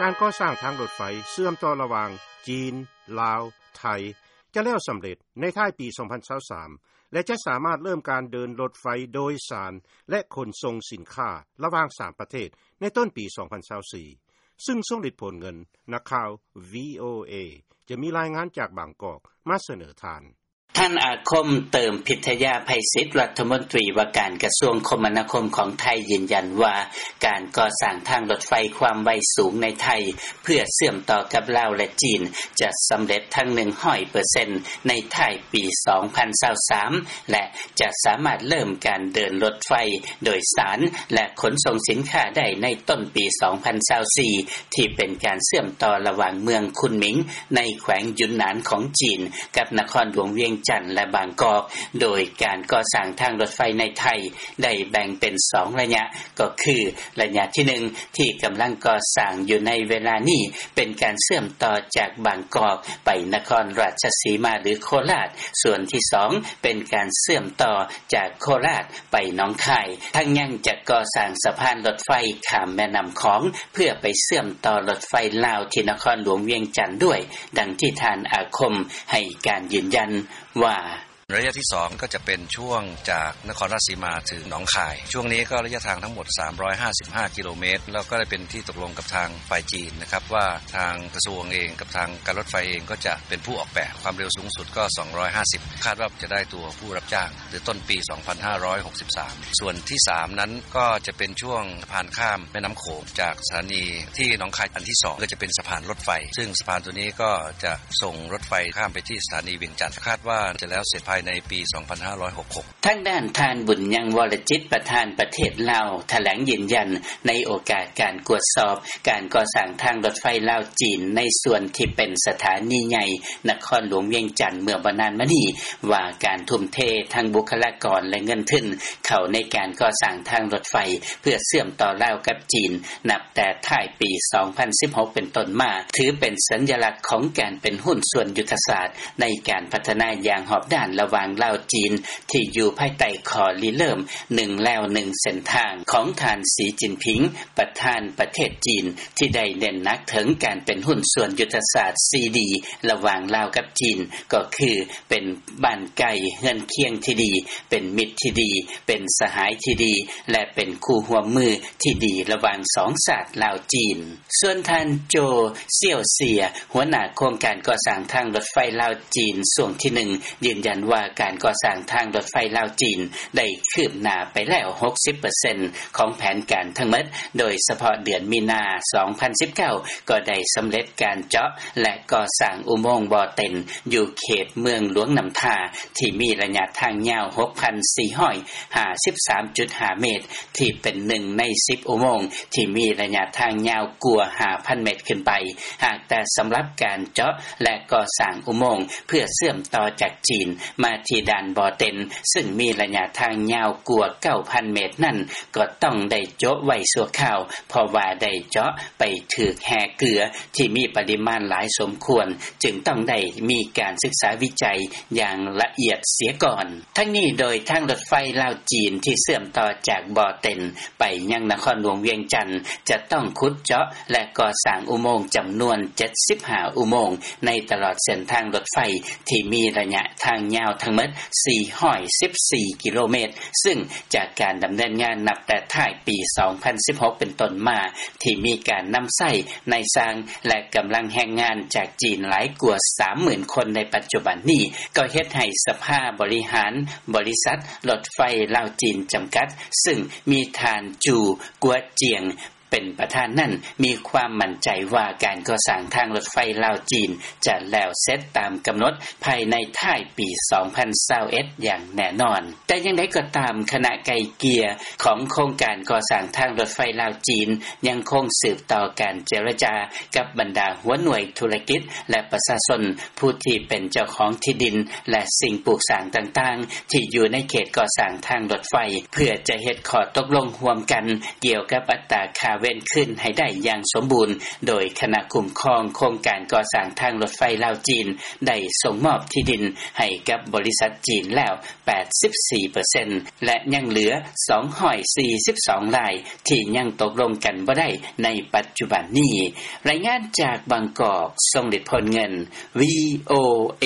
ການກໍ່ສ້າງທາງລົດໄຟເຊື່ອມຕໍ່ລະຫວ່າງຈີນ, ລາວ, ໄທ ຈະແລ້ວສຳເລັດໃນທ້າຍປີສອງພັນຊາວສາມ ແລະ ຈະສາມາດເລີ່ມການເດີນລົດໄຟໂດຍສານ ແລະ ຂົນສົ່ງສິນຄ້າລະຫວ່າງສາມປະເທດໃນຕົ້ນປີສອງພັນຊາວສີ່ ຊຶ່ງຊົງລິດ ໂພນເງິນ, ນັກຂ່າວ ວີໂອເອ ຈະມີລາຍງານຈາກບາງກອກມາສະເໜີທ່ານ. ທ່ານອາຄົມ ເຕີມພິທະຍາໄພສິດ ລັດຖະມົນຕີວ່າການກະຊວງຄົມມະນາຄົມຂອງໄທ ຢືນຢັນວ່າ ການກໍ່ສ້າງທາງລົດໄຟຄວາມໄວສູງໃນໄທ ເພື່ອເຊື່ອມຕໍ່ກັບລາວ ແລະ ຈີນ ຈະສຳເລັດທັງໜຶ່ງຮ້ອຍເປີເຊັນໃນທ້າຍປີສອງພັນຊາວສາມ ແລະ ຈະສາມາດເລີ່ມການເດີນລົດໄຟໂດຍສານ ແລະ ຂົນສົ່ງສິນຄ້າໄດ້ໃນຕົ້ນປີສອງພັນຊາວສີ່ ທີ່ເປັນການເຊື່ອມຕໍ່ລະຫວ່າງເມືອງຄຸນໝິງ ໃນແຂວງຢຸນໜານຂອງຈີນ ກັບນະຄອນຫຼວງວຽງຈັນ ແລະ ບາງກອກ. ໂດຍການກໍ່ສ້າງທາງລົດໄຟໃນໄທ ໄດ້ແບ່ງເປັນສອງໄລຍະ ກໍຄືໄລຍະທີໜຶ່ງ ທີ່ກຳລັງກໍ່ສ້າງຢູ່ໃນເວລານີ້ ເປັນການເຊື່ອມຕໍ່ຈາກບາງກອກໄປນະຄອນລາຊະສີມາ ຫຼື ໂຄລາດ, ສ່ວນທີສອງ ເປັນການເຊື່ອມຕໍ່ຈາກໂຄລາດໄປໜອງຄາຍ, ທັງຍັງຈະກໍ່ສ້າງສະພານລົດໄຟຂ້າມແມ່ນ້ຳຂອງ ເພື່ອໄປເຊື່ອມຕໍ່ລົດໄຟລາວທີ່ນະຄອນຫຼວງວຽງຈັນດ້ວຍ, ດັ່ງທີ່ທ່ານອາຄົມໃຫ້ການຢືນຢັນວ່າ: ໄລຍະທີສອງ ກໍຈະເປັນຊ່ວງຈາກນະຄອນລາຊະສີມາເຖິງໜອງຄາຍ. ຊ່ວງນີ້ກໍໄລຍະທາງທັງໝົດສາມຮ້ອຍຫ້າສິບຫ້າກິໂລເມດ ແລ້ວກໍໄດ້ເປັນທີ່ຕົກລົງກັບທາງຝ່າຍຈີນນະຄັບ ວ່າທາງກະຊວງເອງກັບທາງການລົດໄຟເອງກໍຈະເປັນຜູ້ອອກແບບ, ຄວາມເລັວສູງສຸດກໍສອງຮ້ອຍຫ້າສິບ ຄາດວ່າຈະໄດ້ຕົວຜູ້ຮັບຈ້າງ ຫຼື ຕົ້ນປີສອງພັນຫ້າຮ້ອຍຫົກສິບສາມ. ສ່ວນທີສາມນັ້ນກໍຈະເປັນຊ່ວງສະພານຂ້າມແມ່ນ້ຳໂຂງ ຈາກສະຖານີທີ່ໜອງຄາຍອັນທີສອງ ກໍຈະເປັນສະພານລົດໄຟ, ຊຶ່ງສະພານຕົວນີ້ກໍຈະສົ່ງລົດໄຟຂ້າມໄປທີ່ສະຖານີວຽງຈັນ, ຄາດວ່າຈະແລ້ວເສັດພາຍໃນປີສອງພັນຫ້າຮ້ອຍຫົກສິບຫົກ. ທາງດ້ານທ່ານ ບຸນຍັງ ວໍລະຈິດ ປະທານປະເທດລາວ ຖະແຫຼງຢືນຢັນໃນໂອກາດການກວດສອບການກໍ່ສ້າງທາງລົດໄຟລາວ-ຈີນ ໃນສ່ວນທີ່ເປັນສະຖານີໃຫຍ່ນະຄອນຫຼວງວຽງຈັນເມື່ອບໍ່ນານມານີ້ ວ່າການທຸ່ມເທທັງບຸກຄະລາກອນ ແລະ ເງິນທຶນເຂົ້າໃນການກໍ່ສ້າງທາງລົດໄຟ ເພື່ອເຊື່ອມຕໍ່ລາວກັບຈີນ ນັບແຕ່ທ້າຍປີສອງພັນສິບຫົກເປັນຕົ້ນມາ ຖືເປັນສັນຍະລັກຂອງການເປັນຫຸ້ນສ່ວນຍຸດທະສາດໃນການພັດທະນາຢ່າງຮອບດ້ານລະຫວ່າງລາວ-ຈີນ ທີ່ຢູ່ພາຍໃຕ້ຂໍ້ລິເລີ່ມໜຶ່ງແລວໜຶ່ງເສັ້ນທາງຂອງທ່ານ ສີ ຈິນຜິງ ປະທານປະເທດຈີນ ທີ່ໄດ້ເນັ້ນໜັກເຖິງການເປັນຫຸ້ນສ່ວນຍຸດທະສາດສີ່ດີ ລະຫວ່າງລາວກັບຈີນ ກໍຄື ເປັນບ້ານໃກ້ເຮືອນຄຽງທີ່ດີ, ເປັນມິດທີ່ດີ, ເປັນສະຫາຍທີ່ດີ ແລະ ເປັນຄູ່ຮ່ວມມືທີ່ດີລະຫວ່າງສອງຊາດລາວ-ຈີນ. ສ່ວນທ່ານ ໂຈ ສ່ຽວເຊຍ ຫົວໜ້າໂຄງການກໍ່ສ້າງທາງລົດໄຟລາວ-ຈີນຊ່ວງທີໜຶ່ງ ຢືນຢັນວ່າການກໍ່ສ້າງທາງລົດໄຟລາວ-ຈີນໄດ້ຄືບໜ້າໄປແລ້ວຫົກສິບເປີເຊັນຂອງແຜນການທັງໝົດ, ໂດຍສະເພາະເດືອນມີນາສອງພັນສິບເກົ້າ ກໍໄດ້ສຳເລັດການເຈາະ ແລະ ກໍ່ສ້າງອຸໂມງບໍ່ເຕັນ ຢູ່ເຂດເມືອງຫຼວງນ້ຳທາ ທີ່ມີໄລຍະທາງຍາວຫົກພັນສີ່ຮ້ອຍຫ້າສິບສາມຈຸດຫ້າເມດ ທີ່ເປັນໜຶ່ງໃນສິບອຸໂມງທີ່ມີໄລຍະທາງຍາວກວ່າຫ້າພັນເມດຂຶ້ນໄປ. ຫາກແຕ່ສຳລັບການເຈາະ ແລະ ກໍ່ສ້າງອຸໂມງເພື່ອເຊື່ອມຕໍ່ຈາກຈີນມາທີ່ດ່ານບໍ່ເຕັນ ຊຶ່ງມີໄລຍະທາງຍາວກວ່າເກົ້າພັນເມດນັ້ນ ກໍຕ້ອງໄດ້ໂຈະໄວ້ຊົ່ວຄາວ ເພາະວ່າໄດ້ເຈາະໄປຖືກແຮ່ເກືອທີ່ມີປະລິມານຫຼາຍສົມຄວນ ຈຶ່ງຕ້ອງໄດ້ມີການສຶກສາວິໄຈຢ່າງລະອຽດເສຍກ່ອນ. ທັງນີ້ໂດຍທາງລົດໄຟລາວ-ຈີນທີ່ເຊື່ອມຕໍ່ຈາກບໍ່ເຕັນໄປຍັງນະຄອນຫຼວງວຽງຈັນ ຈະຕ້ອງຂຸດເຈາະ ແລະ ກໍ່ສ້າງອຸໂມງຈຳນວນເຈັດສິບຫ້າອຸໂມງ ໃນຕະຫຼອດເສັ້ນທາງລົດໄຟທີ່ມີໄລຍະທາງຍາວທັງໝົດສີ່ຮ້ອຍສິບສີ່ກິໂລເມດ ຊຶ່ງຈາກການດຳເນີນງານນັບແຕ່ທ້າຍປີສອງພັນສິບຫົກເປັນຕົ້ນມາ ທີ່ມີການນຳໃຊ້ນາຍຊ່າງ ແລະ ກຳລັງແຮງງານຈາກຈີນຫຼາຍກວ່າສາມໝື່ນຄົນໃນປັດຈຸບັນນີ້ ກໍເຮັດໃຫ້ສະພາບໍລິຫານບໍລິສັດລົດໄຟລາວ-ຈີນຈຳກັດ ຊຶ່ງມີທ່ານ ຈູ ກົວຈຽງ ເປັນປະທານນັ້ນ ມີຄວາມໝັ້ນໃຈວ່າການກໍ່ສ້າງທາງລົດໄຟລາວ-ຈີນຈະແລ້ວເສັດຕາມກຳນົດພາຍໃນທ້າຍປີສອງພັນຊາວເອັດຢ່າງແນ່ນອນ. ແຕ່ຢ່າງໃດກໍຕາມ, ຄະນະໄກ່ເກ່ຍຂອງໂຄງການກໍ່ສ້າງທາງລົດໄຟລາວ-ຈີນ ຍັງຄົງສືບຕໍ່ການເຈລະຈາກັບບັນດາຫົວໜ່ວຍທຸລະກິດ ແລະ ປະຊາຊົນ ຜູ້ທີ່ເປັນເຈົ້າຂອງທີ່ດິນ ແລະ ສິ່ງປູກສ້າງຕ່າງໆ ທີ່ຢູ່ໃນເຂດກໍ່ສ້າງທາງລົດໄຟ ເພື່ອຈະເຮັດຂໍ້ຕົກລົງຮ່ວມກັນກ່ຽວກັບອັດຕາຄ່າ ເວນຄືນໃຫ້ໄດ້ຢ່າງສົມບູນ ໂດຍຄະນະຄຸ້ມຄອງໂຄງການກໍ່ສ້າງທາງລົດໄຟລາວ-ຈີນ ໄດ້ສົ່ງມອບທີ່ດິນໃຫ້ກັບບໍລິສັດຈີນແລ້ວ ແປດສິບສີ່ເປີເຊັນ ແລະ ຍັງເຫຼືອ ສອງຮ້ອຍສີ່ສິບສອງລາຍ ທີ່ຍັງຕົກລົງກັນບໍ່ໄດ້ໃນປັດຈຸບັນນີ້. ລາຍງານຈາກບາງກອກ ຊົງເດດ ພົນເງິນ ວີໂອເອ.